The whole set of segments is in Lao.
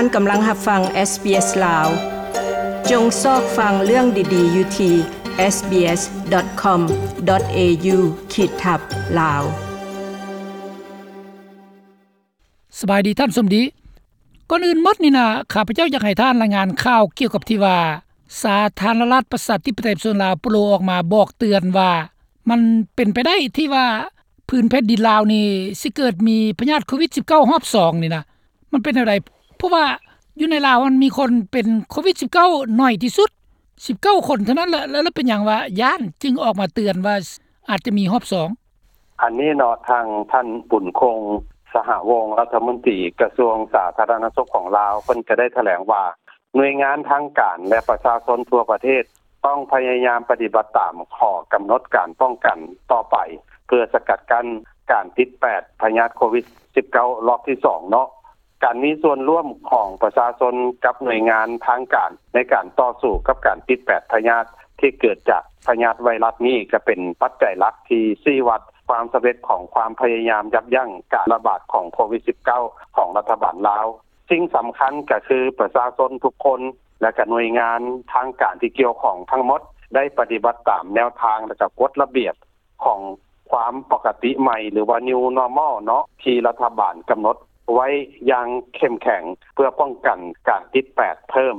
ທ່ານກຳລັງຮັບຟັງ SBS ລາວ. ຈົ່ງຊອກຟັງເລື່ອງດີໆຢູ່ທີ່ SBS.com.au ຂີດທັບ ລາວ. ສະບາຍດີທ່ານສົມດີ. ກ່ອນອື່ນໝົດນີ້ນະ ຂ້າພະເຈົ້າຢາກໃຫ້ທ່ານລາຍງານຂ່າວກ່ຽວກັບທີ່ວ່າ ສາທາລະນະລັດປະຊາທິປະໄຕປະຊາຊົນລາວ ໂປໂລ ອອກມາບອກເຕືອນວ່າ ມັນເປັນໄປໄດ້ທີ່ວ່າ ພື້ນແຜ່ນດິນລາວນີ້ ຊິເກີດມີພະຍາດໂຄວິດສິບເກົ້າ ຮອບສອງນີ້ນະ ມັນເປັນແນວໃດ? ເພາະວ່າຢູ່ໃນລາວມັນມີຄົນເປັນໂຄວິດສິບເກົ້າ ໜ້ອຍທີ່ສຸດ ສິບເກົ້າຄົນເທົ່ານັ້ນແຫຼະ ແລ້ວເປັນຫຍັງວ່າຢ້ານຈຶ່ງອອກມາເຕືອນວ່າອາດຈະມີຮອບສອງ? ອັນນີ້ເນາະ ທາງທ່ານ ບຸນຄົງ ສະຫະວົງ ລັດຖະມົນຕີກະຊວງສາທາລະນະສຸກຂອງລາວ ເພິ່ນກໍໄດ້ຖະແຫຼງວ່າ ໜ່ວຍງານທາງການ ແລະ ປະຊາຊົນທົ່ວປະເທດ ຕ້ອງພະຍາຍາມປະຕິບັດຕາມຂໍ້ກຳນົດການປ້ອງກັນຕໍ່ໄປ ເພື່ອສະກັດກັ້ນການຕິດແປດພະຍາດໂຄວິດສິບເກົ້າ ລອບທີສອງເນາະ. ການມີສ່ວນຮ່ວມຂອງປະຊາຊົນກັບໜ່ວຍງານທາງການ ໃນການຕໍ່ສູ້ກັບການຕິດແປດພະຍາດທີ່ເກີດຈາກພະຍາດໄວຣັສນີ້ ກໍເປັນປັດໄຈຫຼັກທີ່ຊີ້ວັດຄວາມສຳເລັດຂອງຄວາມພະຍາຍາມຢັບຢັ້ງການລະບາດຂອງໂຄວິດສິບເກົ້າ ຂອງລັດຖະບານລາວ. ສິ່ງສຳຄັນກໍຄືປະຊາຊົນທຸກຄົນ ແລະ ກະໜ່ວຍງານທາງການທີ່ກ່ຽວຂ້ອງທັງໝົດ ໄດ້ປະຕິບັດຕາມແນວທາງ ແລະ ກະກົດລະບຽບຂອງຄວາມປົກກະຕິໃໝ່ ຫຼືວ່າ New Normal ເນາະ ທີ່ລັດຖະບານກຳນົດໄວ້ຢ່າງເຂັ້ມແຂງ ເພື່ອປ້ອງກັນການຕິດແປດເພີ່ມ.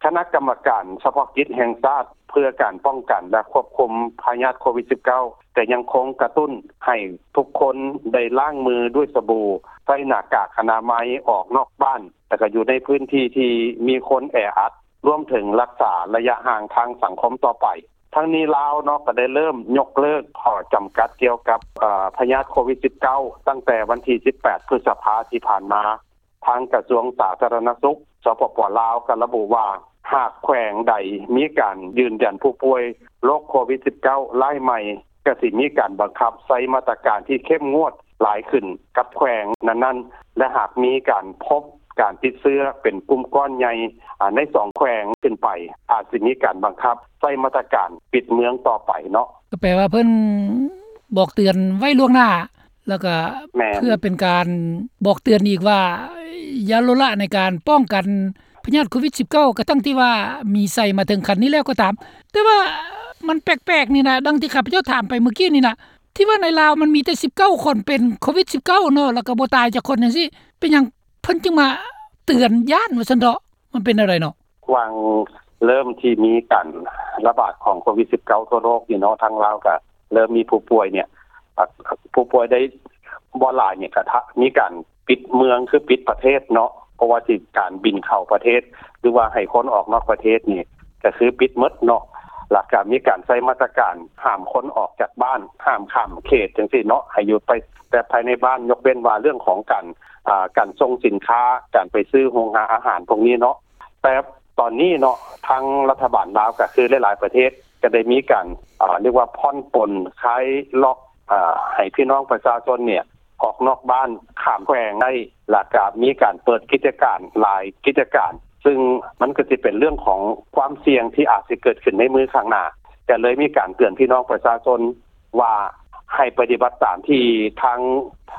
ຄະນະກຳມະການສະເພາະກິດແຫ່ງຊາດເພື່ອການປ້ອງກັນ ແລະ ຄວບຄຸມພະຍາດໂຄວິດສິບເກົ້າ ກໍຍັງຄົງກະຕຸ້ນໃຫ້ທຸກຄົນໄດ້ລ້າງມືດ້ວຍສະບູ, ໃສ່ໜ້າກາກອະນາໄມອອກນອກບ້ານ ແລະ ກໍຢູ່ໃນພື້ນທີ່ທີ່ມີຄົນແອອັດ, ລວມເຖິງລັກສາໄລຍະຫ່າງທາງສັງຄົມຕໍ່ໄປ. ທັງນີ້ລາວເນາະ ກໍໄດ້ເລີ່ມຍົກເລີກຂໍ້ຈຳກັດກ່ຽວກັບ ເອີ ພະຍາດໂຄວິດສິບເກົ້າ ຕັ້ງແຕ່ວັນທີສິບແປດ ພຶດສະພາທີ່ຜ່ານມາ. ທາງກະຊວງສາທາລະນະສຸກ ສປປ ລາວ ກໍລະບຸວ່າ ຫາກແຂວງໃດມີການຢືນຢັນຜູ້ປ່ວຍໂລກໂຄວິດສິບເກົ້າ ລາຍໃໝ່ ກໍຊິມີການບັງຄັບໃຊ້ມາດຕະການທີ່ເຂັ້ມງວດຫຼາຍຂຶ້ນກັບແຂວງນັ້ນໆ ແລະ ຫາກມີການພົບການຕິດເຊື້ອເປັນກຸ່ມກ້ອນໃຫຍ່ ອາ ໃນສອງແຂວງຂຶ້ນໄປ ອາດຊິມີການບັງຄັບໃຊ້ມາດຕະການປິດເມືອງຕໍ່ໄປເນາະ. ກໍແປວ່າເພິ່ນບອກເຕືອນໄວ້ລ່ວງໜ້າ ແລ້ວກໍ ແມ່ນ ເພື່ອເປັນການບອກເຕືອນອີກວ່າ ຢ່າລົດລະໃນການປ້ອງກັນພະຍາດໂຄວິດສິບເກົ້າ ກະທັງທີ່ວ່າມີໄຊມາເຖິງຂັ້ນນີ້ແລ້ວກໍຕາມ. ແຕ່ວ່າມັນແປກໆນີ້ນະ ດັ່ງທີ່ຂ້າພະເຈົ້າຖາມໄປເມື່ອກີ້ນີ້ນະ ທີ່ວ່າໃນລາວມັນມີແຕ່ສິບເກົ້າຄົນເປັນໂຄວິດສິບເກົ້າເນາະ ແລ້ວກໍບໍ່ຕາຍຈັກຄົນຈັ່ງຊີ້ ເປັນຫຍັງເພິ່ນຈຶ່ງມາເຕືອນຢ້ານວ່າຊັ້ນເຖາະ? ມັນເປັນແນວໃດເນາະ? ຫວ່າງເລີ່ມທີ່ມີການລະບາດຂອງໂຄວິດສິບເກົ້າທົ່ວໂລກນີ້ເນາະ ທາງລາວກະເລີ່ມມີຜູ້ປ່ວຍເນຍ ອາ ຜູ້ປ່ວຍໄດ້ບໍ່ຫຼາຍເນຍ ກະທະ ມີການປິດເມືອງ ຄືປິດປະເທດເນາະ ບໍ່ວ່າຊິການບິນເຂົ້າປະເທດ ຫຼືວ່າໃຫ້ຄົນອອກນອກປະເທດນີ້ ກະຄືປິດໝົດເນາະ ແລ້ວກະມີການໃຊ້ມາດຕະການຫ້າມຄົນອອກຈາກບ້ານ ຫ້າມຂ້າມເຂດຈັ່ງຊີ້ເນາະ ໃຫ້ຢູ່ໄປແຕ່ພາຍໃນບ້ານ ຍົກເວັ້ນວ່າເລື່ອງຂອງການ ອາ ການສົ່ງສິນຄ້າ ການໄປຊື້ໂຮງຫາອາຫານພວກນີ້ເນາະ. ແຕ່ຕອນນີ້ເນາະ ທາງລັດຖະບານລາວ ກໍຄືຫຼາຍໆປະເທດ ກໍໄດ້ມີການ ອາ ຮຽກວ່າຜ່ອນປົນຄາຍລັອກ ອາ ໃຫ້ພີ່ນ້ອງປະຊາຊົນເນຍ ອອກນອກບ້ານ ຂ້າມແຂວງໄດ້ ແລ້ວກໍມີການເປີດກິດຈະການຫຼາຍກິດຈະການ ຊຶ່ງມັນກໍຊິເປັນເລື່ອງຂອງຄວາມສ່ຽງທີ່ອາດຊິເກີດຂຶ້ນໃນມື້ຂ້າງໜ້າ ກໍເລີຍມີການເຕືອນພີ່ນ້ອງປະຊາຊົນ ວ່າໃຫ້ປະຕິບັດຕາມທີ່ທາງ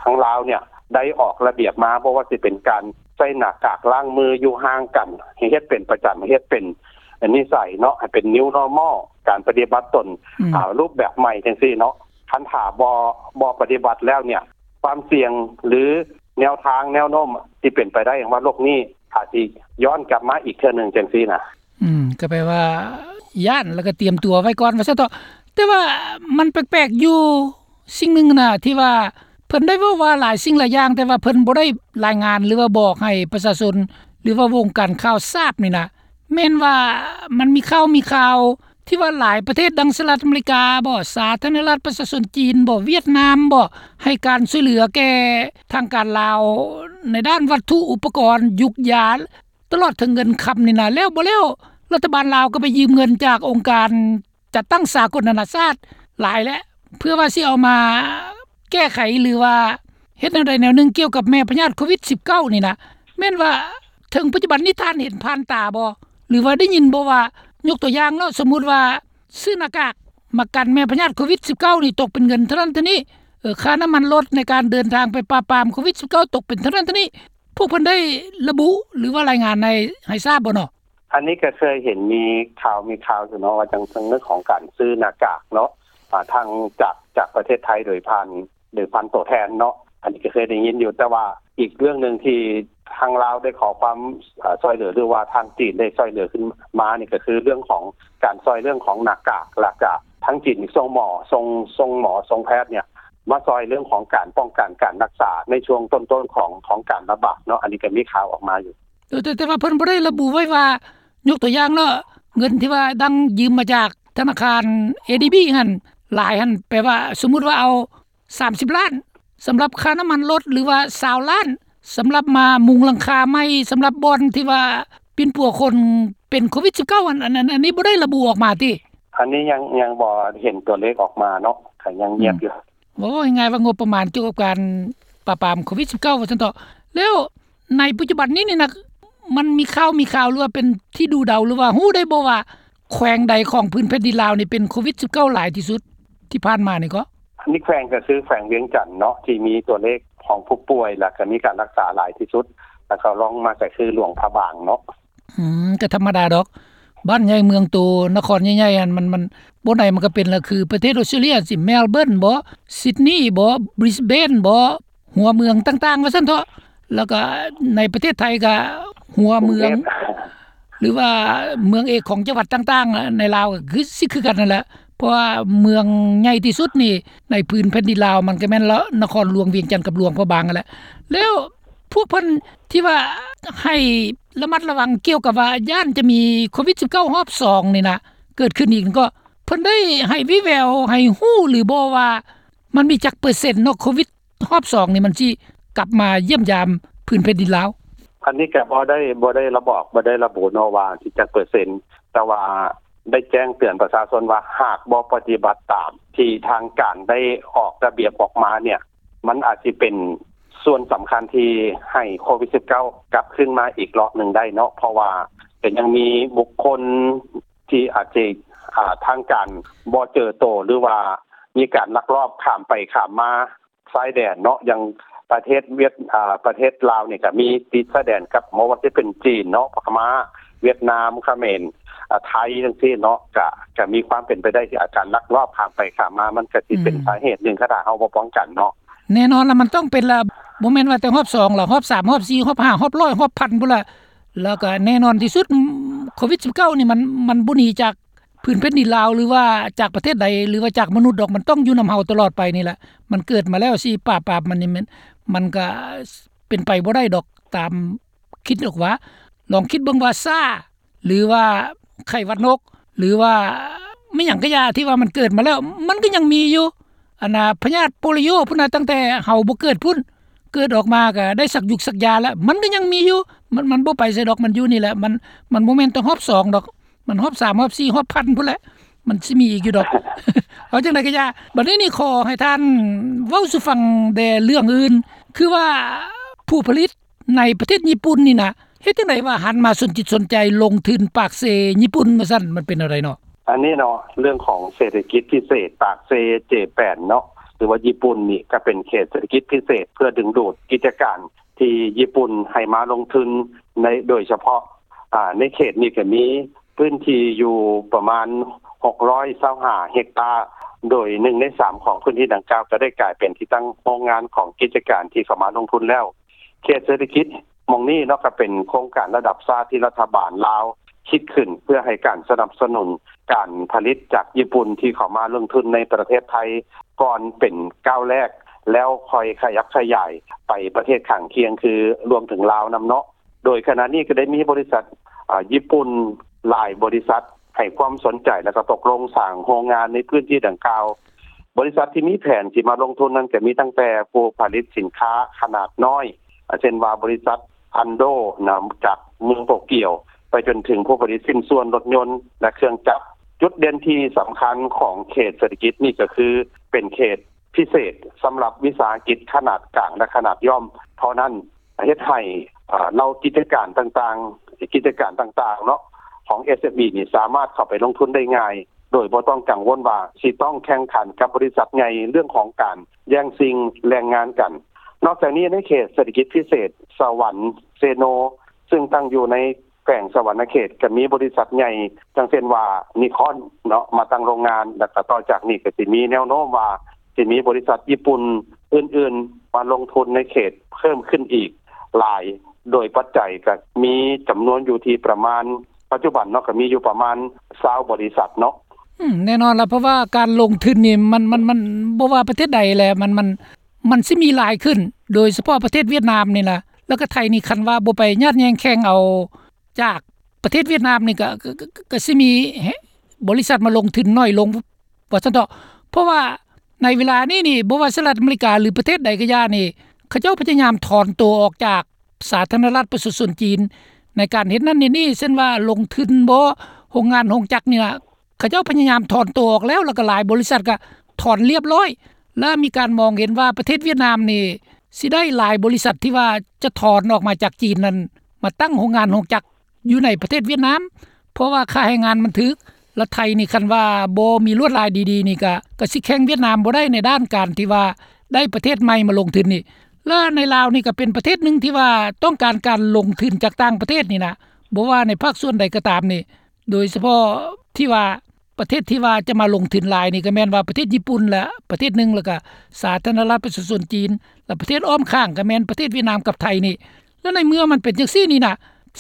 ທາງລາວເນຍໄດ້ອອກລະບຽບມາ ບໍ່ວ່າຊິເປັນການໃສ່ໜ້າກາກ ລ້າງມື ຢູ່ຫ່າງກັນ ໃຫ້ເຮັດເປັນປະຈຳ ໃຫ້ເຮັດເປັນນິໄສເນາະ ໃຫ້ເປັນ New Normal ການປະຕິບັດຕົນ ອືມ ອາ ຮູບແບບໃໝ່ຈັ່ງຊີ້ເນາະ. ຄັນຖ້າບໍ່ ບໍ່ປະຕິບັດແລ້ວເນຍ ຄວາມສ່ຽງ ຫຼື ແນວທາງແນວໂນ້ມທີ່ເປັນໄປໄດ້ຫຍັງວ່າໂລກນີ້ອາດຊິຍ້ອນກັບມາອີກເທື່ອໜຶ່ງຈັ່ງຊີ້ນະ. ອືມ ກໍແປວ່າຢ້ານ ແລ້ວກໍຕຽມຕົວໄວ້ກ່ອນວ່າຊັ້ນເຖາະ. ແຕ່ວ່າມັນແປກໆຢູ່ສິ່ງໜຶ່ງນະ ທີ່ວ່າເພິ່ນໄດ້ເວົ້າວ່າຫຼາຍສິ່ງຫຼາຍຢ່າງ ແຕ່ວ່າເພິ່ນບໍ່ໄດ້ລາຍງານ ຫຼືວ່າບອກໃຫ້ປະຊາຊົນ ຫຼືວ່າວົງການຂ່າວຊາບນີ້ນະ ແມ່ນວ່າມັນມີຂ່າວ ມີຂ່າວທີ່ວ່າຫຼາຍປະເທດ ດັ່ງສະຫະລັດອາເມລິກາບໍ ສາທາລະນະລັດປະຊາຊົນຈີນບໍ ຫວຽດນາມບໍ ໃຫ້ການຊ່ວຍເຫຼືອແກ່ທາງການລາວ ໃນດ້ານວັດຖຸອຸປະກອນ ຢູກຢາ ຕະຫຼອດເຖິງເງິນຄຳນີ້ນະ ແລ້ວບໍ່ແລ້ວ ລັດຖະບານລາວກໍໄປຢືມເງິນຈາກອົງການຈັດຕັ້ງສາກົນນານາຊາດຫຼາຍແຫຼະ ເພື່ອວ່າຊິເອົາມາແກ້ໄຂ ຫຼືວ່າເຮັດແນວໃດແນວໜຶ່ງກ່ຽວກັບແມ່ພະຍາດໂຄວິດສິບເກົ້ານີ້ນະ. ແມ່ນວ່າເຖິງປັດຈຸບັນນີ້ທ່ານເຫັນຜ່ານຕາບໍ່ ຫຼືວ່າໄດ້ຍິນບໍ່ວ່າ ຍົກຕົວຢ່າງເນາະ ສົມມຸດວ່າຊື້ໜ້າກາກມາກັນແມ່ພະຍາດໂຄວິດສິບເກົ້ານີ້ຕົກເປັນເງິນເທົ່ານັ້ນເທົ່ານີ້ ເອີ ຄ່ານ້ຳມັນລົດໃນການເດີນທາງໄປປາບປາມໂຄວິດສິບເກົ້າຕົກເປັນເທົ່ານັ້ນເທົ່ານີ້ ພວກເພິ່ນໄດ້ລະບຸ ຫຼືວ່າລາຍງານໃຫ້ ໃຫ້ຊາບບໍ່ເນາະ? ອັນນີ້ກໍເຄີຍເຫັນມີຂ່າວ ມີຂ່າວຢູ່ເນາະ ວ່າຈັ່ງ ເຖິງເລື່ອງຂອງການຊື້ໜ້າກາກເນາະ ອ່າ ທາງຈາກ ຈາກປະເທດໄທໂດຍຜ່ານ ໂດຍຜ່ານຕົວແທນເນາະ ອັນນີ້ກໍເຄີຍໄດ້ຍິນຢູ່ ແຕ່ວ່າອີກເລື່ອງໜຶ່ງທີ່ທາງລາວໄດ້ຂໍຄວາມ ເອີ ຊ່ວຍເຫຼືອ ຫຼືວ່າທາງຈີນໄດ້ຊ່ວຍເຫຼືອຂຶ້ນມານີ້ ກໍຄືເລື່ອງຂອງການຊ່ວຍເລື່ອງຂອງໜ້າກາກ ແລ້ວກະທາງຈີນສົ່ງໝໍ ສົ່ງ ສົ່ງໝໍ ສົ່ງແພດເນີ້ຍ ມາຊ່ວຍເລື່ອງຂອງການປ້ອງກັນການຮັກສາໃນຊ່ວງຕົ້ນໆຂອງ ຂອງການລະບາດເນາະ ອັນນີ້ກໍມີຂ່າວອອກມາຢູ່. ເອີ ແຕ່ ແຕ່ວ່າເພິ່ນບໍ່ໄດ້ລະບຸໄວ້ວ່າ ຍົກຕົວຢ່າງເນາະ ເງິນທີ່ວ່າດັງຢືມມາຈາກທະນາຄານ ເອດີບີ ຫັ້ນ ຫຼາຍຫັ້ນ ແປວ່າສົມມຸດວ່າເອົາ ສາມສິບລ້ານ ສຳລັບຄ່ານ້ຳມັນລົດ ຫຼືວ່າ ຊາວລ້ານ ສຳລັບມາມຸງຫຼັງຄາໃໝ່ ສຳລັບບ່ອນທີ່ວ່າປິ່ນປົວຄົນເປັນໂຄວິດສິບເກົ້າ ອັນ ອັນ ອັນ ອັນນີ້ບໍ່ໄດ້ລະບຸອອກມາຕິ? ອັນນີ້ຍັງ ຍັງບໍ່ເຫັນຕົວເລກອອກມາເນາະ ກໍຍັງງຽບຢູ່. ເວົ້າງ່າຍໆວ່າງົບປະມານກ່ຽວກັບການປາບປາມໂຄວິດສິບເກົ້າ ວ່າຊັ້ນເຖາະ. ແລ້ວໃນປັດຈຸບັນນີ້ນີ້ນະ ມັນມີຂ່າວ ມີຂ່າວ ຫຼືວ່າເປັນທີ່ດູເດົາ ຫຼືວ່າຮູ້ໄດ້ບໍ່ວ່າ ແຂວງໃດຂອງພື້ນແຜ່ນດິນລາວນີ້ເປັນໂຄວິດສິບເກົ້າຫຼາຍທີ່ສຸດທີ່ຜ່ານມານີ້ເກາະ? ອັນນີ້ແຂວງກໍຄືແຂວງວຽງຈັນເນາະ ທີ່ມີຕົວເລກຂອງຜູ້ປ່ວຍ ແລ້ວກໍມີການຮັກສາຫຼາຍທີ່ສຸດ ແລ້ວກໍລອງມາກໍຄືຫຼວງພະບາງເນາະ. ອືມ ກໍທຳມະດາດອກ ບ້ານໃຫຍ່ເມືອງໂຕ ນະຄອນໃຫຍ່ໆ ອັນມັນ ມັນ ບ່ອນໃດມັນກໍເປັນລະ ຄືປະເທດອອສເຕຣເລັຍ ຊິ ເມລເບີນບໍ ຊິດນີບໍ ບຣິສເບນບໍ ຫົວເມືອງຕ່າງໆ ວ່າຊັ້ນເຖາະ ແລ້ວກໍໃນປະເທດໄທກໍຫົວເມືອງ ກຸງເທບ ຫຼືວ່າເມືອງເອກຂອງຈັງຫວັດຕ່າງໆ ໃນລາວກໍຄື ຊິຄືກັນນັ້ນແຫຼະ ເພາະວ່າເມືອງໃຫຍ່ທີ່ສຸດນີ້ໃນພື້ນແຜ່ນດິນລາວ ມັນກໍແມ່ນລະ ນະຄອນຫຼວງວຽງຈັນກັບຫຼວງພະບາງຫັ້ນແຫຼະ. ແລ້ວພວກເພິ່ນທີ່ວ່າໃຫ້ລະມັດລະວັງກ່ຽວກັບວ່າຢ້ານຈະມີໂຄວິດສິບເກົ້າຮອບສອງນີ້ນະ ເກີດຂຶ້ນອີກ ກໍເພິ່ນໄດ້ໃຫ້ວີແວວ ໃຫ້ຮູ້ຫຼືບໍ່ວ່າ ມັນມີຈັກເປີເຊັນເນາະ ໂຄວິດຮອບສອງນີ້ ມັນຊິກັບມາຢ້ຽມຢາມພື້ນແຜ່ນດິນລາວ? ອັນນີ້ກໍບໍ່ໄດ້ ບໍ່ໄດ້ລະບອກ ບໍ່ໄດ້ລະບຸເນາະວ່າຊິຈັກເປີເຊັນ ແຕ່ວ່າໄດ້ແຈ້ງເຕືອນປະຊາຊົນວ່າ ຫາກບໍ່ປະຕິບັດຕາມທີ່ທາງການໄດ້ອອກລະບຽບອອກມາເນີ້ຍ ມັນອາດຊິເປັນສ່ວນສຳຄັນທີ່ໃຫ້ໂຄວິດສິບເກົ້າກັບຄືນມາອີກລອບໜຶ່ງໄດ້ເນາະ ເພາະວ່າກໍຍັງມີບຸກຄົນທີ່ອາດຈະ ອ່າ ທາງການບໍ່ເຈີໂຕ ຫຼືວ່າມີການລັກລອບຂ້າມໄປຂ້າມມາຊາຍແດນເນາະ ຢ່າງປະເທດຫວຽດ ອ່າ ປະເທດລາວນີ້ກໍມີຕິດຊາຍແດນກັບ ບໍ່ວ່າຈະເປັນຈີນເນາະ ພະມ້າ ຫວຽດນາມ ຂະເໝນ ອ່າ ໄທ ຈັ່ງຊີ້ເນາະ ກະ ກະມີຄວາມເປັນໄປໄດ້ທີ່ອາ ການລັກລອບຂ້າມໄປຂ້າມມາ ມັນກະຊິເປັນ ອືມ ສາເຫດໜຶ່ງ ຄັນຖ້າເຮົາບໍ່ປ້ອງກັນເນາະ. ແນ່ນອນລະ ມັນຕ້ອງເປັນລະ ບໍ່ແມ່ນວ່າແຕ່ຮອບສອງລະ ຮອບສາມ ຮອບສີ່ ຮອບຫ້າ ຮອບຮ້ອຍ ຮອບພັນພຸ້ນລະ ແລ້ວກະແນ່ນອນທີ່ສຸດ ໂຄວິດສິບເກົ້ານີ້ ມັນ ມັນບໍ່ໜີຈາກ ພື້ນແຜ່ນດິນລາວ ຫຼືວ່າຈາກປະເທດໃດ ຫຼືວ່າຈາກມະນຸດດອກ ມັນຕ້ອງຢູ່ນຳເຮົາຕະຫຼອດໄປນີ້ແຫຼະ ມັນເກີດມາແລ້ວ ຊິປາບປາມມັນນີ້ ມັນ ມັນກະເປັນໄປບໍ່ໄດ້ດອກ ຕາມຄິດອອກວ່າ ລອງຄິດເບິ່ງວ່າຊາ ຫຼືວ່າໄຂ້ຫວັດນົກ ຫຼືວ່າແມ່ນຫຍັງກະຢ່າ ທີ່ວ່າມັນເກີດມາແລ້ວ ມັນກະຍັງມີຢູ່ ອັນນ່າ ພະຍາດໂປລິໂອພຸ້ນນະ ຕັ້ງແຕ່ເຮົາບໍ່ເກີດພຸ້ນ ເກີດອອກມາກະໄດ້ສັກຢູກສັກຢາແລ້ວ ມັນກະຍັງມີຢູ່ ມັນ ມັນບໍ່ໄປໃສດອກ ມັນຢູ່ນີ້ແຫຼະ ມັນ ມັນບໍ່ແມ່ນແຕ່ຮອບສອງດອກ ມັນຮອບສາມ ຮອບສີ່ ຮອບພັນພຸ້ນແຫຼະ ມັນຊິມີອີກຢູ່ດອກ ເອົາຈັ່ງໃດກະຢ່າ ບັດນີ້ນີ້ຂໍໃຫ້ທ່ານເວົ້າສູ່ຟັງແດ່ເລື່ອງອື່ນ ຄືວ່າຜູ້ຜະລິດໃນປະເທດຍີ່ປຸ່ນນີ້ນະ ເຮັດຈັ່ງໃດວ່າຫັນມາສົນຈິດສົນໃຈລົງທຶນປາກເຊຍີ່ປຸ່ນວ່າຊັ້ນ ມັນເປັນແນວໃດເນາະ? ອັນນີ້ເນາະ ເລື່ອງຂອງເສດຖະກິດພິເສດປາກເຊເຈແປນເນາະ ຫຼືວ່າຍີ່ປຸ່ນນີ້ ກະເປັນເຂດເສດຖະກິດພິເສດ ເພື່ອດຶງດູດກິດຈະການທີ່ຍີ່ປຸ່ນໃຫ້ມາລົງທຶນໃນ ໂດຍສະເພາະ ອາ ໃນເຂດນີ້ກະມີພື້ນທີ່ຢູ່ປະມານຫົກຮ້ອຍຊາວຫ້າເຮັກຕາ ໂດຍໜຶ່ງໃນສາມຂອງພື້ນທີ່ດັ່ງກ່າວກະໄດ້ກາຍເປັນທີ່ຕັ້ງໂຮງງານຂອງກິດຈະການທີ່ເຂົ້າມາລົງທຶນແລ້ວ. ເຂດເສດຖະກິດໝ່ອງນີ້ເນາະ ກະເປັນໂຄງການລະດັບຊາດທີ່ລັດຖະບານລາວຄິດຂຶ້ນ ເພື່ອໃຫ້ການສະໜັບສະໜູນການຜະລິດຈາກຍີ່ປຸ່ນທີ່ເຂົ້າມາລົງທຶນໃນປະເທດໄທ ກ່ອນເປັນກ້າວແລກ ແລ້ວຄ່ອຍຂະຫຍັບຂະຫຍາຍໄປປະເທດຂ້າງຄຽງ ຄືລວມເຖິງລາວນຳເນາະ. ໂດຍຂະນະນີ້ກະໄດ້ມີບໍລິສັດ ອາ ຍີ່ປຸ່ນຫຼາຍບໍລິສັດໃຫ້ຄວາມສົນໃຈ ແລ້ວກະຕົກລົງສ້າງໂຮງງານໃນພື້ນທີ່ດັ່ງກ່າວ. ບໍລິສັດທີ່ມີແຜນຊິມາລົງທຶນນັ້ນກະມີຕັ້ງແຕ່ຜູ້ຜະລິດສິນຄ້າຂະໜາດນ້ອຍ ອາ ເຊັ່ນວ່າບໍລິສັດ ອັນໂດ ນະ ຈາກເມືອງໂຕກຽວ ໄປຈົນເຖິງຜູ້ຜະລິດຊິ້ນສ່ວນລົດຍົນ ແລະ ເຄື່ອງຈັກ. ຈຸດເດັ່ນທີ່ສຳຄັນຂອງເຂດເສດຖະກິດນີ້ກະຄືເປັນເຂດພິເສດສຳລັບວິສາຫະກິດຂະໜາດກາງ ແລະ ຂະໜາດຍ່ອມເທົ່ານັ້ນ ເຮັດໃຫ້ ເອີ ເຫຼົ່າກິດຈະການຕ່າງໆ ກິດຈະການຕ່າງໆເນາະ ຂອງ ເອສເອັມອີ ນີ້ສາມາດເຂົ້າໄປລົງທຶນໄດ້ງ່າຍ ໂດຍບໍ່ຕ້ອງກັງວົນວ່າຊິຕ້ອງແຂ່ງຂັນກັບບໍລິສັດໃຫຍ່ເລື່ອງຂອງການແຍ່ງຊິງແຮງງານກັນ. ນອກຈາກນີ້ ໃນເຂດເສດຖະກິດພິເສດສະຫວັນເຊໂນ ຊຶ່ງຕັ້ງຢູ່ໃນແຂວງສະຫວັນນະເຂດ ກໍມີບໍລິສັດໃຫຍ່ ຈັ່ງເຊັ່ນວ່າ Nikon ເນາະ ມາຕັ້ງໂຮງງານ ແລ້ວກໍຕໍ່ຈາກນີ້ກໍຊິມີແນວໂນ້ມວ່າ ຊິມີບໍລິສັດຍີ່ປຸ່ນອື່ນໆ ມາລົງທຶນໃນເຂດເພີ່ມຂຶ້ນອີກຫຼາຍ ໂດຍປັດໄຈກໍມີຈຳນວນຢູ່ທີ່ປະມານ ປັດຈຸບັນເນາະ ກໍມີຢູ່ປະມານຊາວບໍລິສັດເນາະ. ອືມ ແນ່ນອນລະ ເພາະວ່າການລົງທຶນນີ້ ມັນ ມັນ ມັນ ບໍ່ວ່າປະເທດໃດແຫຼະ ມັນ ມັນ ມັນຊິມີຫຼາຍຂຶ້ນ ໂດຍສະເພາະປະເທດຫວຽດນາມນີ້ລະ ແລ້ວກໍໄທນີ້ ຄັນວ່າບໍ່ໄປຍາດແຍ່ງແຂ່ງເອົາຈາກປະເທດຫວຽດນາມນີ້ ກໍ ກໍ ກໍ ກໍຊິມີບໍລິສັດມາລົງທຶນໜ້ອຍລົງ ວ່າຊັ້ນເຖາະ. ເພາະວ່າໃນເວລານີ້ນີ້ ບໍ່ວ່າສະຫະລັດອາເມລິກາ ຫຼື ປະເທດໃດກໍຢ່ານີ້ ເຂົາເຈົ້າພະຍາຍາມຖອນໂຕອອກຈາກສາທາລະນະລັດປະຊາຊົນຈີນ ໃນການເຮັດນັ້ນເຮັດນີ້ ເຊັ່ນວ່າລົງທຶນບໍ ໂຮງງານໂຮງຈັກນີ້ນະ ເຂົາເຈົ້າພະຍາຍາມຖອນໂຕອອກແລ້ວ ແລ້ວກໍຫຼາຍບໍລິສັດກໍຖອນລຽບລ້ອຍ ແລະ ມີການມອງເຫັນວ່າປະເທດຫວຽດນາມນີ້ ຊິໄດ້ຫຼາຍບໍລິສັດທີ່ວ່າຈະຖອນອອກມາຈາກຈີນນັ້ນ ມາຕັ້ງໂຮງງານໂຮງຈັກຢູ່ໃນປະເທດຫວຽດນາມ ເພາະວ່າຄ່າແຮງງານມັນຖືກ ແລະ ໄທນີ້ ຄັນວ່າບໍ່ມີລວດລາຍດີໆນີ້ ກະ ກະຊິແຂ່ງຫວຽດນາມບໍ່ໄດ້ໃນດ້ານການທີ່ວ່າໄດ້ປະເທດໃໝ່ມາລົງທຶນນີ້ ແລະ ໃນລາວນີ້ກໍເປັນປະເທດໜຶ່ງທີ່ວ່າຕ້ອງການການລົງທຶນຈາກຕ່າງປະເທດນີ້ນະ ບໍ່ວ່າໃນພາກສ່ວນໃດກໍຕາມນີ້ ໂດຍສະເພາະທີ່ວ່າ ປະເທດທີ່ວ່າຈະມາລົງທຶນຫຼາຍນີ້ ກໍແມ່ນວ່າປະເທດຍີ່ປຸ່ນລະປະເທດໜຶ່ງ ແລ້ວກະສາທາລະນະລັດປະຊາຊົນຈີນ ແລະ ປະເທດອ້ອມຂ້າງກໍແມ່ນປະເທດຫວຽດນາມກັບໄທນີ້ ແລະ ໃນເມື່ອມັນເປັນຈັ່ງຊີ້ນີ້ນະ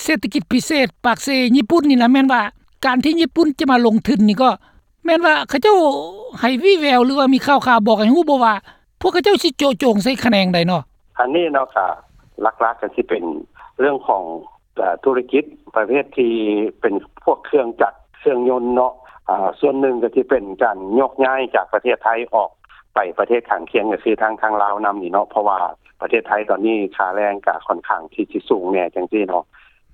ເສດຖະກິດພິເສດປາກເຊຍີ່ປຸ່ນນີ້ນະ ແມ່ນວ່າການທີ່ຍີ່ປຸ່ນຈະມາລົງທຶນນີ້ ກໍແມ່ນວ່າເຂົາເຈົ້າໃຫ້ວີ່ແວວ ຫຼືວ່າມີຂ່າວໆບອກໃຫ້ຮູ້ບໍ່ວ່າ ພວກເຂົາເຈົ້າຊິເຈາະຈົງໃສ່ຂະແໜງໃດເນາະ? ອັນນີ້ເນາະ ກໍຫຼັກໆກໍຊິເປັນເລື່ອງຂອງ ເອີ່ ທຸລະກິດປະເພດທີ່ເປັນພວກເຄື່ອງຈັກເຄື່ອງຍົນເນາະ ອາ ສ່ວນໜຶ່ງກໍຊິເປັນການໂຍກຍ້າຍຈາກປະເທດໄທອອກໄປປະເທດຂ້າງຄຽງ ກໍຄືທາງ ທາງລາວນຳນີ້ເນາະ ເພາະວ່າປະເທດໄທຕອນນີ້ຄ່າແຮງກໍຂ້ອນຂ້າງທີ່ຊິສູງແດ່ຈັ່ງຊີ້ເນາະ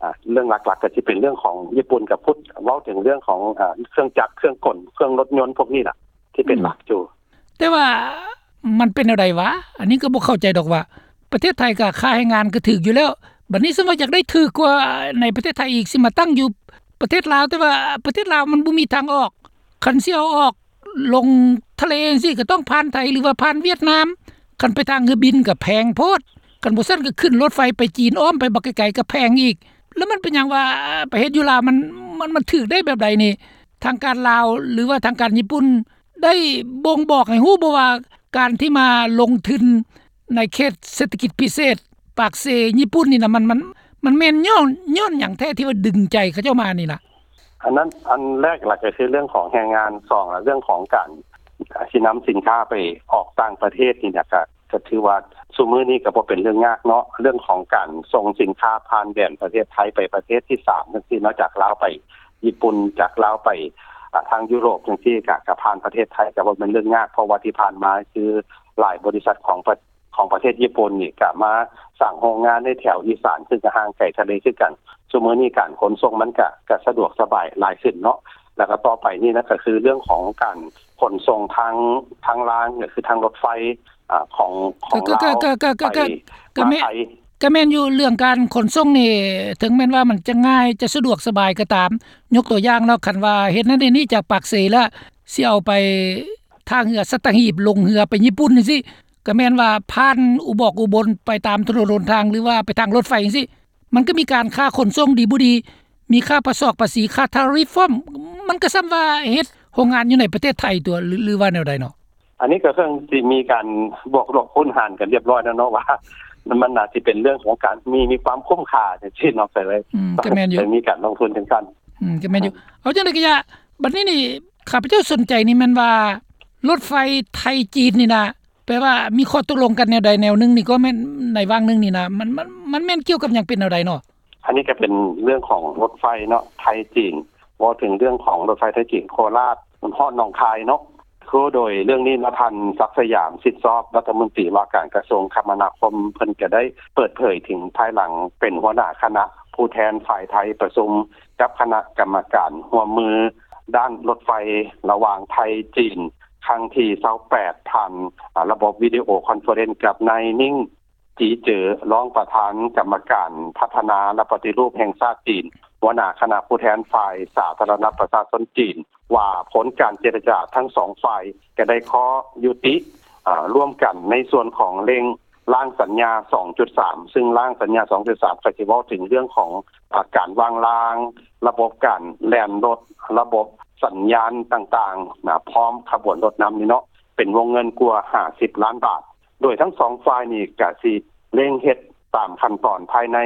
ອາ ເລື່ອງຫຼັກໆກໍຊິເປັນເລື່ອງຂອງຍີ່ປຸ່ນກັບພຸດ ເວົ້າເຖິງເລື່ອງຂອງ ອາ ເຄື່ອງຈັກເຄື່ອງກົນເຄື່ອງລົດຍົນພວກນີ້ລະ ທີ່ເປັນ ອືມ ຫຼັກຢູ່. ແຕ່ວ່າມັນເປັນແນວໃດຫວາ? ອັນນີ້ກໍບໍ່ເຂົ້າໃຈດອກວ່າ ປະເທດໄທກໍຄ່າແຮງງານກໍຖືກຢູ່ແລ້ວ ບັດນີ້ສົມມຸດວ່າຢາກໄດ້ຖືກກວ່າໃນປະເທດໄທອີກ ຊິມາຕັ້ງຢູ່ປະເທດລາວ ແຕ່ວ່າປະເທດລາວມັນບໍ່ມີທາງອອກ ຄັນຊິເອົາອອກລົງທະເລຈັ່ງຊີ້ ກໍຕ້ອງຜ່ານໄທ ຫຼືວ່າຜ່ານຫວຽດນາມ ຄັນໄປທາງເຮືອບິນກໍແພງໂພດ ຄັນບໍ່ຊັ້ນກໍຂຶ້ນລົດໄຟໄປຈີນ ອ້ອມໄປບັກໄກໆກໍແພງອີກ ແລ້ວມັນເປັນຫຍັງວ່າໄປເຮັດຢູ່ລາວ ມັນ ມັນ ມັນຖືກໄດ້ແບບໃດນີ້? ທາງການລາວ ຫຼືວ່າທາງການຍີ່ປຸ່ນ ໄດ້ບົ່ງບອກໃຫ້ຮູ້ບໍ່ວ່າ ການທີ່ມາລົງທຶນໃນເຂດເສດຖະກິດພິເສດປາກເຊຍີ່ປຸ່ນນີ້ນະ ມັນ ມັນ ມັນແມ່ນຍ້ອນ ຍ້ອນຫຍັງແທ້ທີ່ວ່າດຶງໃຈເຂົາເຈົ້າມານີ້ນະ? ອັນນັ້ນ ອັນແລກລະກໍຄືເລື່ອງຂອງແຮງງານ ສອງລະເລື່ອງຂອງການ ອາ ຊິນຳສິນຄ້າໄປອອກຕ່າງປະເທດນີ້ນະ ກະ ກໍຖືວ່າຊຸມື້ນີ້ກໍບໍ່ເປັນເລື່ອງຍາກເນາະ ເລື່ອງຂອງການສົ່ງສິນຄ້າຜ່ານແດນປະເທດໄທໄປປະເທດທີສາມຈັ່ງຊີ້ເນາະ ຈາກລາວໄປຍີ່ປຸ່ນ ຈາກລາວໄປ ອາ ທາງຢູໂຣບຈັ່ງຊີ້ ກະ ກະຜ່ານປະເທດໄທ ກະບໍ່ແມ່ນເລື່ອງຍາກ ເພາະວ່າທີ່ຜ່ານມາຄືຫຼາຍບໍລິສັດຂອງປະ ຂອງປະເທດຍີ່ປຸ່ນນີ້ ກະມາສ້າງໂຮງງານໃນແຖວອີສານ ຊຶ່ງກະຫ່າງໄກທະເລຄືກັນ. ຊຸມື້ນີ້ການຂົນສົ່ງມັນກະ ກະສະດວກສະບາຍຫຼາຍຂຶ້ນເນາະ ແລ້ວກະຕໍ່ໄປນີ້ນະ ກະຄືເລື່ອງຂອງການຂົນສົ່ງທາງ ທາງລາງ ກະຄືທາງລົດໄຟ ອາ ຂອງ ຂອງລາວ ໄປ ກະແມ່ນ ມາໄທ ກະແມ່ນຢູ່ ເລື່ອງການຂົນສົ່ງນີ້ ເຖິງແມ່ນວ່າມັນຈະງ່າຍ ຈະສະດວກສະບາຍກໍຕາມ ຍົກຕົວຢ່າງເນາະ ຄັນວ່າເຮັດນັ້ນເຮັດນີ້ຈາກປາກເຊ ລະຊິເອົາໄປທ່າເຮືອສັດຕະຫີບ ລົງເຮືອໄປຍີ່ປຸ່ນຈັ່ງຊີ້ ກະແມ່ນວ່າຜ່ານອຸບອກອຸບົນ ໄປຕາມຖະໜົນຫົນທາງ ຫຼືວ່າໄປທາງລົດໄຟຈັ່ງຊີ້ ມັນກໍມີການຄ່າຂົນສົ່ງດີບໍ່ດີ ມີຄ່າປະຊອກປະສີ ຄ່າທາຣິຟພ້ອມ ມັນກໍສ່ຳວ່າເຮັດໂຮງງານຢູ່ໃນປະເທດໄທຕົວະ ຫຼື ຫຼືວ່າແນວໃດເນາະ? ອັນນີ້ກໍເຊິ່ງຊິມີການບວກລົບຄູນຫານກັນລຽບຮ້ອຍແລ້ວເນາະ ວ່າມັນໜ້າຊິເປັນເລື່ອງຂອງການມີ ມີຄວາມຄຸ້ມຄ່າຈັ່ງຊີ້ເນາະ ກໍເລີຍ ອືມ ກໍແມ່ນຢູ່ ມີການລົງທຶນຈັ່ງຊັ້ນ ອືມ ກໍແມ່ນຢູ່ ເອົາຈັ່ງໃດກໍຢ່າ ບັດນີ້ນີ້ ຂ້າພະເຈົ້າສົນໃຈນີ້ແມ່ນວ່າ ລົດໄຟໄທ-ຈີນນີ້ນະ ແປວ່າມີຂໍ້ຕົກລົງກັນແນວໃດແນວໜຶ່ງນີ້ ກໍແມ່ນໃນຫວ່າງໜຶ່ງນີ້ນະ ມັນ ມັນ ມັນແມ່ນກ່ຽວກັບຫຍັງ ເປັນແນວໃດເນາະ? ອັນນີ້ກໍເປັນເລື່ອງຂອງລົດໄຟເນາະ ໄທ-ຈີນ ເວົ້າເຖິງເລື່ອງຂອງລົດໄຟໄທ-ຈີນ ໂຄລາດຮອດໜອງຄາຍເນາະ ຄືໂດຍເລື່ອງນີ້ເນາະ ທ່ານ ສັກສະຫຍາມ ສິດຊອບ ລັດຖະມົນຕີວ່າການກະຊວງຄະມະນາຄົມ ເພິ່ນກໍໄດ້ເປີດເຜີຍເຖິງພາຍຫຼັງເປັນຫົວໜ້າຄະນະຜູ້ແທນຝ່າຍໄທປະຊຸມກັບຄະນະກຳມະການຮ່ວມມືດ້ານລົດໄຟລະຫວ່າງໄທ-ຈີນ ຄັ້ງທີຊາວແປດ ຜ່ານ ອາ ລະບົບວິດີໂອຄອນເຟີເຣັນກັບນາຍ ນິ້ງ ຈີເຈີ ຮອງປະທານກຳມະການພັດທະນາ ແລະ ປະຕິຮູບແຫ່ງຊາດຈີນ ຫົວໜ້າຄະນະຜູ້ແທນຝ່າຍສາທາລະນະປະຊາຊົນຈີນ ວ່າຜົນການເຈລະຈາທັງສອງຝ່າຍກໍໄດ້ຂໍ້ຍຸຕິ ອາ ຮ່ວມກັນໃນສ່ວນຂອງເລັ່ງ ຮ່າງສັນຍາສອງຈຸດສາມ ຊຶ່ງຮ່າງສັນຍາສອງຈຸດສາມ ກໍຊິເວົ້າເຖິງເລື່ອງຂອງ ອາ ການວາງລາງ, ລະບົບການແລ່ນລົດ, ລະບົບສັນຍານຕ່າງໆນະ ພ້ອມຂະບວນລົດນຳນີ້ເນາະ ເປັນວົງເງິນກວ່າຫ້າສິບລ້ານບາດ. ໂດຍທັງສອງຝ່າຍນີ້ກະຊິເລັ່ງເຮັດຕາມຂັ້ນຕອນພາຍໃນ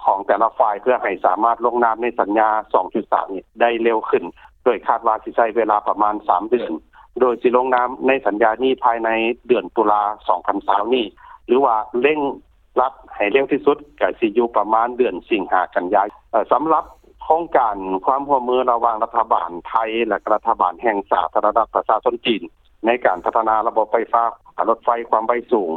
ຂອງແຕ່ລະຝ່າຍ ເພື່ອໃຫ້ສາມາດລົງນາມໃນສັນຍາສອງຈຸດສາມນີ້ໄດ້ເລັວຂຶ້ນ, ໂດຍຄາດວ່າຊິໃຊ້ເວລາປະມານສາມເດືອນ, ໂດຍຊິລົງນາມໃນສັນຍານີ້ພາຍໃນເດືອນຕຸລາສອງພັນຊາວນີ້ ຫຼືວ່າເລັ່ງລັດໃຫ້ເລັວທີ່ສຸດກະຊິຢູ່ປະມານເດືອນສິງຫາ ກັນຍາ. ເອີ ສຳລັບໂຄງການຄວາມຮ່ວມມືລະຫວ່າງລັດຖະບານໄທ ແລະ ກະລັດຖະບານແຫ່ງສາທາລະນະລັດປະຊາຊົນຈີນ ໃນການພັດທະນາລະບົບໄຟຟ້າ ອາ ລົດໄຟຄວາມໄວສູງ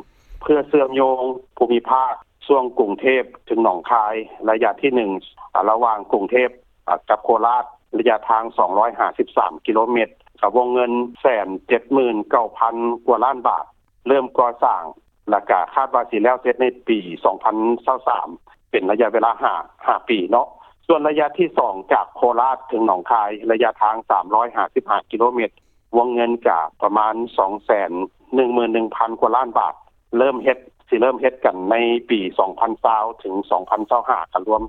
ເພື່ອເຊື່ອມໂຍງພູມິພາກຊ່ວງກຸງເທບເຖິງໜອງຄາຍ ໄລຍະທີໜຶ່ງ ອາ ລະຫວ່າງກຸງເທບ ອາ ກັບໂຄລາດ ໄລຍະທາງສອງຮ້ອຍຫ້າສິບສາມກິໂລແມັດ ກະວົງເງິນແສນເຈັດໝື່ນເກົ້າພັນກວ່າລ້ານບາດ ເລີ່ມກໍ່ສ້າງ ແລະກະຄາດວ່າຊິແລ້ວເສັດໃນປີສອງພັນຊາວສາມ ເປັນໄລຍະເວລາຫ້າ ຫ້າປີເນາະ. ສ່ວນໄລຍະທີສອງ ຈາກໂຄລາດເຖິງໜອງຄາຍ ໄລຍະທາງສາມຮ້ອຍຫ້າສິບຫ້າກິໂລແມັດ ວົງເງິນກະປະມານສອງແສນໜຶ່ງໝື່ນໜຶ່ງພັນກວ່າລ້ານບາດ ເລີ່ມເຮັດ ຊິເລີ່ມເຮັດກັນໃນປີສອງພັນຊາວເຖິງສອງພັນຊາວຫ້າ ກະລວມ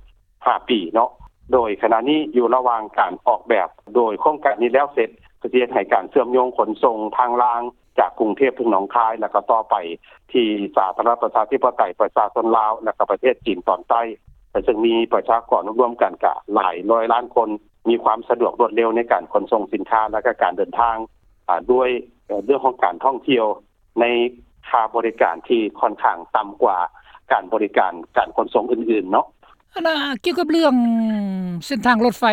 ຫ້າປີເນາະ. ໂດຍຂະນະນີ້ຢູ່ລະຫວ່າງການອອກແບບ, ໂດຍໂຄງການນີ້ແລ້ວເສັດ ກໍຊິເຮັດໃຫ້ການເຊື່ອມໂຍງຂົນສົ່ງທາງລາງຈາກກຸງເທບເຖິງໜອງຄາຍ ແລະ ກໍຕໍ່ໄປທີ່ສາທາລະນະລັດປະຊາທິປະໄຕປະຊາຊົນລາວ ແລະ ກໍປະເທດຈີນຕອນໃຕ້ ເຊິ່ງມີປະຊາກອນລວມໆກັນກະຫຼາຍຮ້ອຍລ້ານຄົນ ມີຄວາມສະດວກລວດເລັວໃນການຂົນສົ່ງສິນຄ້າ ແລະ ກະການເດີນທາງ ອາ ດ້ວຍ ເອີ ເລື່ອງຂອງການທ່ອງທ່ຽວໃນຄ່າບໍລິການທີ່ຂ້ອນຂ້າງຕ່ຳກວ່າການບໍລິການການຂົນສົ່ງອື່ນໆເນາະ. ອັນນ່າ ກ່ຽວກັບເລື່ອງເສັ້ນທາງລົດໄຟ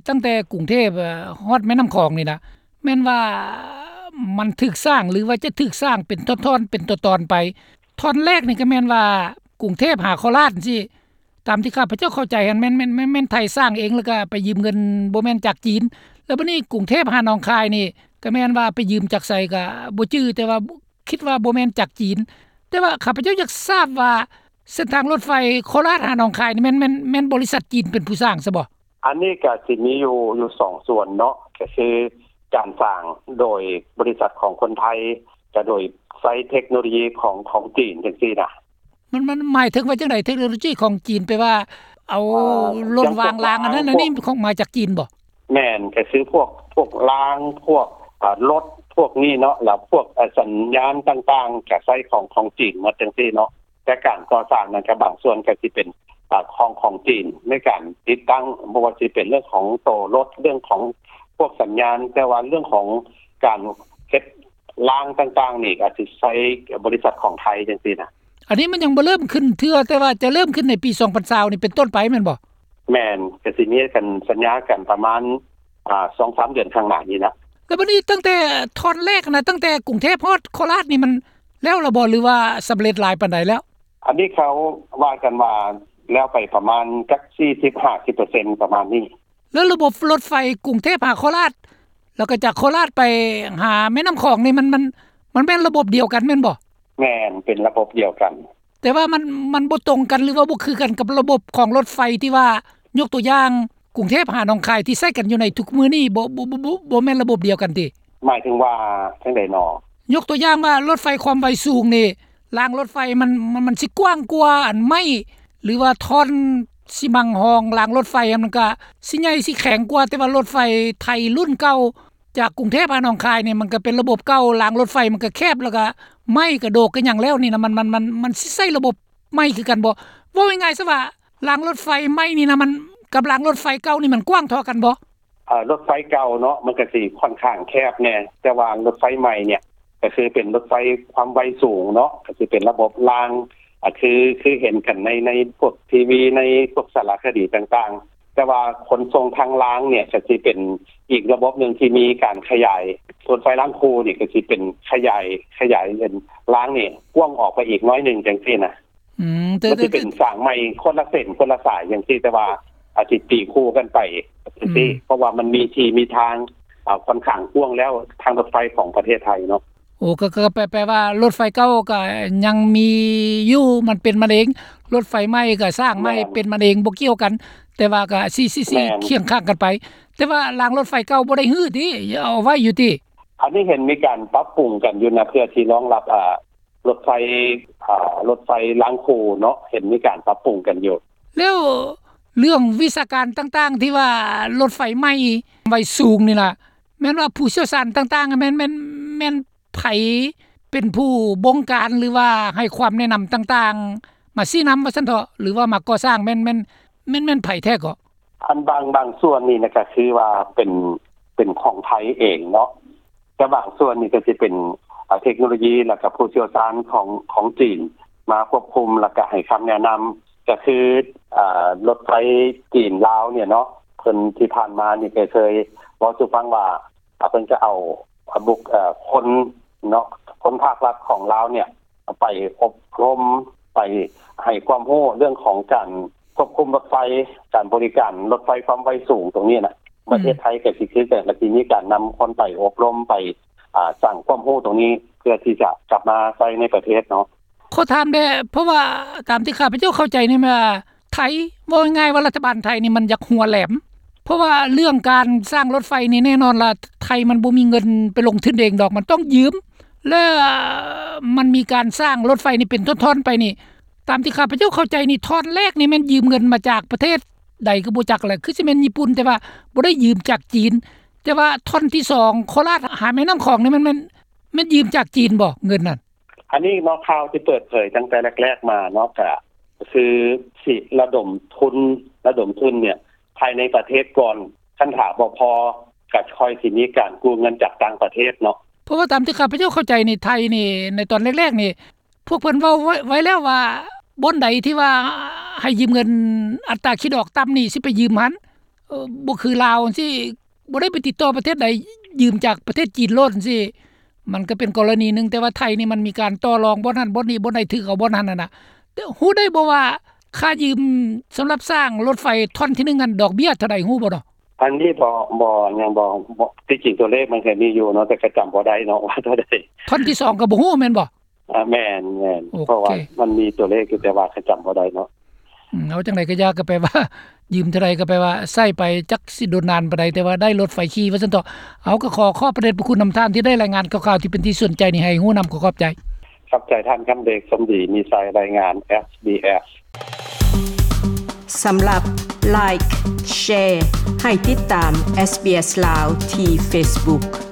ຕັ້ງແຕ່ກຸງເທບ ເອີ ຮອດແມ່ນ້ຳຂອງນີ້ນະ ແມ່ນວ່າມັນຖືກສ້າງ ຫຼືວ່າຈະຖືກສ້າງເປັນທ່ອນໆ ເປັນຕອນໆໄປ? ທ່ອນແລກນີ້ກໍແມ່ນວ່າກຸງເທບຫາໂຄລາດຈັ່ງຊີ້ ຕາມທີ່ຂ້າພະເຈົ້າເຂົ້າໃຈຫັ້ນ ແມ່ນ ແມ່ນ ແມ່ນ ແມ່ນໄທສ້າງເອງ ແລ້ວກໍໄປຢືມເງິນບໍ່ແມ່ນຈາກຈີນ. ແລ້ວບັດນີ້ກຸງເທບຫາໜອງຄາຍນີ້ ກໍແມ່ນວ່າໄປຢືມຈາກໃສກໍບໍ່ຈື່ ແຕ່ວ່າຄິດວ່າບໍ່ແມ່ນຈາກຈີນ. ແຕ່ວ່າຂ້າພະເຈົ້າຢາກຊາບວ່າ ເສັ້ນທາງລົດໄຟໂຄລາດຫາໜອງຄາຍນີ້ ແມ່ນ ແມ່ນ ແມ່ນບໍລິສັດຈີນເປັນຜູ້ສ້າງຊະບໍ? ອັນນີ້ກໍຊິມີຢູ່ ຢູ່ສອງສ່ວນເນາະ ກໍຄືການສ້າງໂດຍບໍລິສັດຂອງຄົນໄທ ແລະ ໂດຍໃຊ້ເທັກໂນໂລຢີຂອງ ຂອງຈີນຈັ່ງຊີ້ນະ. ມັນ ມັນໝາຍເຖິງວ່າຈັ່ງໃດ? ເທັກໂນໂລຢີຂອງຈີນ ແປວ່າເອົາ ເອີ ລົດວາງລາງອັນນັ້ນອັນນີ້ ຂອງ ມາຈາກຈີນບໍ? ແມ່ນ ກໍຄືພວກ ພວກລາງ ພວກ ອາ ລົດພວກນີ້ເນາະ ແລ້ວພວກ ອາ ສັນຍານຕ່າງໆ ກໍໃຊ້ຂອງ ຂອງຈີນໝົດຈັ່ງຊີ້ເນາະ. ແຕ່ການກໍ່ສ້າງນັ້ນກໍບາງສ່ວນກໍຊິເປັນ ອາ ຂອງ ຂອງຈີນ ໃນການຕິດຕັ້ງ ບໍ່ວ່າຊິເປັນເລື່ອງຂອງໂຕລົດ ເລື່ອງຂອງພວກສັນຍານ ແຕ່ວ່າເລື່ອງຂອງການເຮັດລາງຕ່າງໆນີ້ ອາດຊິໃຊ້ບໍລິສັດຂອງໄທຈັ່ງຊີ້ນະ. ອັນນີ້ມັນຍັງບໍ່ເລີ່ມຂຶ້ນເທື່ອ ແຕ່ວ່າຈະເລີ່ມຂຶ້ນໃນປີສອງພັນຊາວນີ້ເປັນຕົ້ນໄປແມ່ນບໍ່? ແມ່ນ ກໍຊິມີການສັນຍາກັນປະມານ ອາ ສອງສາມເດືອນຂ້າງໜ້ານີ້ລະ. ແລ້ວບັດນີ້ຕັ້ງແຕ່ທ່ອນແລກນະ ຕັ້ງແຕ່ກຸງເທບຮອດໂຄລາດນີ້ ມັນແລ້ວລະບໍ່ ຫຼືວ່າສຳເລັດຫຼາຍປານໃດແລ້ວ? ອັນນີ້ເຂົາວ່າກັນວ່າແລ້ວໄປປະມານຈັກສີ່ສິບຫ້າສິບເປີເຊັນ ປະມານນີ້. ແລ້ວລະບົບລົດໄຟກຸງເທບຫາໂຄລາດ ແລ້ວກໍຈາກໂຄລາດໄປຫາແມ່ນ້ຳຂອງນີ້ ມັນ ມັນ ມັນແມ່ນລະບົບດຽວກັນແມ່ນບໍ່? ແມ່ນ ເປັນລະບົບດຽວກັນ. ແຕ່ວ່າມັນ ມັນບໍ່ຕົງກັນ ຫຼືວ່າບໍ່ຄືກັນກັບລະບົບຂອງລົດໄຟທີ່ວ່າ ຍົກຕົວຢ່າງ ກຸງເທບຫາໜອງຄາຍທີ່ໃຊ້ກັນຢູ່ໃນທຸກມື້ນີ້ ບໍ່ ບໍ່ ບໍ່ ບໍ່ ບໍ່ແມ່ນລະບົບດຽວກັນຕິ? ໝາຍເຖິງວ່າຈັ່ງໃດນໍ? ຍົກຕົວຢ່າງວ່າລົດໄຟຄວາມໄວສູງນີ້ ລາງລົດໄຟມັນ ມັນ ມັນຊິກວ້າງກວ່າອັນໄມ້ ຫຼືວ່າທ່ອນຊິມັງຮອງລາງລົດໄຟ ມັນກະຊິໃຫຍ່ຊິແຂງກວ່າ ແຕ່ວ່າລົດໄຟໄທລຸ້ນເກົ່າ ຈາກກຸງເທບຫາໜອງຄາຍນີ້ ມັນກໍເປັນລະບົບເກົ່າ ລາງລົດໄຟມັນກໍແຄບ ແລ້ວກໍໄມ້ກະໂດກກະຫຍັງແລ້ວນີ້ນະ ມັນ ມັນ ມັນ ມັນຊິໃຊ້ລະບົບໃໝ່ຄືກັນບໍ່? ເວົ້າງ່າຍໆຊະວ່າ ລາງລົດໄຟໃໝ່ນີ້ນະ ມັນ ກັບລາງລົດໄຟເກົ່ານີ້ມັນກວ້າງທໍ່ກັນບໍ່? ເອີ ລົດໄຟເກົ່າເນາະ ມັນກະຊິຂ້ອນຂ້າງແຄບແດ່ ແຕ່ວ່າລົດໄຟໃໝ່ນີ້ ກະຄືເປັນລົດໄຟຄວາມໄວສູງເນາະ ກະຊິເປັນລະບົບລາງ ອາ ຄື ຄືເຫັນກັນໃນ ໃນພວກທີວີ ໃນພວກສາລະຄະດີຕ່າງໆ ແຕ່ວ່າຂົນສົ່ງທາງລາງນີ້ກະຊິເປັນອີກລະບົບໜຶ່ງທີ່ມີການຂະຫຍາຍ ລົດໄຟລາງຄູ່ນີ້ກະຊິເປັນຂະຫຍາຍ ຂະຫຍາຍເປັນລາງນີ້ກວ້າງອອກໄປອີກໜ້ອຍໜຶ່ງຈັ່ງຊີ້ນະ. ອືມ ແຕ່ ມັນຊິເປັນ ແຕ່ ສ້າງໃໝ່ຄົນລະເສັ້ນຄົນລະສາຍຈັ່ງຊີ້ ແຕ່ວ່າອາດຊິຕີຄູ່ກັນໄປຈັ່ງຊີ້ ອືມ ເພາະວ່າມັນມີທີ່ມີທາງ ອາ ຂ້ອນຂ້າງກວ້າງແລ້ວ ທາງລົດໄຟຂອງປະເທດໄທເນາະ. ໂອ້ ກໍ ກໍແປ ແປວ່າລົດໄຟເກົ່າກໍຍັງມີຢູ່ ມັນເປັນມັນເອງ ລົດໄຟໃໝ່ກໍສ້າງໃໝ່ ແມ່ນ ເປັນມັນເອງ ບໍ່ກ່ຽວກັນ ແຕ່ວ່າກໍຊິ ຊິ ຊິ ແມ່ນ ຄຽງຂ້າງກັນໄປ ແຕ່ວ່າລາງລົດໄຟເກົ່າບໍ່ໄດ້ຮື້ຕິ ເອົາໄວ້ຢູ່ຕິ? ອັນນີ້ເຫັນມີການປັບປຸງກັນຢູ່ນະ ເພື່ອທີ່ຮອງຮັບ ອາ ລົດໄຟ ອາ ລົດໄຟລາງຄູ່ເນາະ ເຫັນມີການປັບປຸງກັນຢູ່. ແລ້ວເລື່ອງວິຊາການຕ່າງໆ ທີ່ວ່າລົດໄຟໃໝ່ໄວສູງນີ້ລະ ແມ່ນວ່າຜູ້ຊ່ຽວຊານຕ່າງໆ ແມ່ນ ແມ່ນ ແມ່ນໃຜເປັນຜູ້ບົງການ ຫຼືວ່າໃຫ້ຄວາມແນະນຳຕ່າງໆ ມາຊີ້ນຳວ່າຊັ້ນເຖາະ ຫຼືວ່າມາກໍ່ສ້າງ ແມ່ນ ແມ່ນ ແມ່ນ ແມ່ນໃຜແທ້ເກາະ? ອັນບາງ ບາງສ່ວນນີ້ນະ ກໍຄືວ່າເປັນ ເປັນຂອງໄທເອງເນາະ ແຕ່ບາງສ່ວນນີ້ກໍຊິເປັນ ອາ ເທັກໂນໂລຢີ ແລ້ວກໍຜູ້ຊ່ຽວຊານຂອງ ຂອງຈີນມາຄວບຄຸມ ແລ້ວກໍໃຫ້ຄຳແນະນຳ ກໍຄື ອາ ລົດໄຟຈີນລາວນີ້ເນາະ ເພິ່ນທີ່ຜ່ານມານີ້ກໍເຄີຍເວົ້າສູ່ຟັງວ່າ ອາ ເພິ່ນຈະເອົາ ອາ ບຸກ ເອີ ຄົນເນາະ ຄົນພາກລັດຂອງລາວນີ້ໄປອົບຮົມ ໄປໃຫ້ຄວາມຮູ້ເລື່ອງຂອງການຄວບຄຸມລົດໄຟ ການບໍລິການລົດໄຟຄວາມໄວສູງຕົງນີ້ນະ. ອືມ ປະເທດໄທກໍຊິຄືກັນ ກໍຊິມີການນຳຄົນໄປອົບຮົມ ໄປ ອາ ສ້າງຄວາມຮູ້ຕົງນີ້ ເພື່ອທີ່ຈະກັບມາໃຊ້ໃນປະເທດເນາະ. ຂໍຖາມແດ່ ເພາະວ່າຕາມທີ່ຂ້າພະເຈົ້າເຂົ້າໃຈນີ້ ແມ່ນວ່າໄທ ເວົ້າງ່າຍໆວ່າລັດຖະບານໄທນີ້ມັນຢາກຫົວແຫຼມ ເພາະວ່າເລື່ອງການສ້າງລົດໄຟນີ້ ແນ່ນອນລະ ໄທມັນບໍ່ມີເງິນໄປລົງທຶນເອງດອກ ມັນຕ້ອງຢືມ ແລະ ມັນມີການສ້າງລົດໄຟນີ້ເປັນທ່ອນໆໄປນີ້ ຕາມທີ່ຂ້າພະເຈົ້າເຂົ້າໃຈນີ້ ທ່ອນແລກນີ້ແມ່ນຢືມເງິນມາຈາກປະເທດໃດກໍບໍ່ຈັກແຫຼະ ຄືຊິແມ່ນຍີ່ປຸ່ນ ແຕ່ວ່າບໍ່ໄດ້ຢືມຈາກຈີນ ແຕ່ວ່າທ່ອນທີສອງ ໂຄລາດຫາແມ່ນ້ຳຂອງນີ້ ແມ່ນ ແມ່ນ ແມ່ນຢືມຈາກຈີນບໍ່ ເງິນນັ້ນ? ອັນນີ້ເນາະ ຂ່າວທີ່ເປີດເຜີຍຕັ້ງແຕ່ແລກໆມາເນາະ ກະຄືຊິລະດົມທຶນ ລະດົມທຶນເນຍ ພາຍໃນປະເທດກ່ອນ ຄັນຖ້າບໍ່ພໍ ກະຄ່ອຍຊິມີການກູ້ເງິນຈາກຕ່າງປະເທດເນາະ. ເພາະວ່າຕາມທີ່ຂ້າພະເຈົ້າເຂົ້າໃຈນີ້ ໄທນີ້ ໃນຕອນແລກໆນີ້ ພວກເພິ່ນເວົ້າໄວ້ ໄວ້ແລ້ວວ່າ ບ່ອນໃດທີ່ວ່າໃຫ້ຢືມເງິນອັດຕາຄິດດອກຕ່ຳນີ້ ຊິໄປຢືມຫັ້ນ ເອີ ບໍ່ຄືລາວຈັ່ງຊີ້ ບໍ່ໄດ້ໄປຕິດຕໍ່ປະເທດໃດ ຢືມຈາກປະເທດຈີນໂລດຈັ່ງຊີ້ ມັນກໍເປັນກໍລະນີໜຶ່ງ. ແຕ່ວ່າໄທນີ້ມັນມີການຕໍ່ລອງບ່ອນນັ້ນບ່ອນນີ້ ບ່ອນໃດຖືກເອົາບ່ອນນັ້ນຫັ້ນນະ. ແຕ່ຮູ້ໄດ້ບໍ່ວ່າຄ່າຢືມສຳລັບສ້າງລົດໄຟທ່ອນທີໜຶ່ງຫັ້ນ ດອກເບ້ຍເທົ່າໃດ ຮູ້ບໍ່ເນາະ? ອັນນີ້ບໍ່ ບໍ່ ຍັງບໍ່ ບໍ່ ທີ່ຈິງຕົວເລກມັນກໍມີຢູ່ເນາະ ແຕ່ກໍຈຳບໍ່ໄດ້ເນາະວ່າເທົ່າໃດ. ທ່ອນທີສອງກໍບໍ່ຮູ້ແມ່ນບໍ່? ອາ ແມ່ນ ແມ່ນ ໂອເຄ ເພາະວ່າມັນມີຕົວເລກຢູ່ ແຕ່ວ່າກໍຈຳບໍ່ໄດ້ເນາະ. ອືມ ເອົາຈັ່ງໃດກໍຢ່າ ກໍແປວ່າຢືມເທົ່າໃດກໍແປວ່າໃຊ້ໄປຈັກຊິດົນນານປານໃດ ແຕ່ວ່າໄດ້ລົດໄຟຂີ່ວ່າຊັ້ນເຖາະ. ເອົາ ກໍຂໍຂອບພະເດດພະຄຸນນຳທ່ານທີ່ໄດ້ລາຍງານຂ່າວໆ ທີ່ເປັນທີ່ສົນໃຈນີ້ໃຫ້ຮູ້ນຳ ຂໍຂອບໃຈ. ຂອບໃຈທ່ານຄຳເດດ ສົມດີມີໄຊ ລາຍງານ ເອສບີເອສ. ສຳລັບ Like Share ໃຫ້ຕິດຕາມ SBS ລາວ ທີ່ Facebook.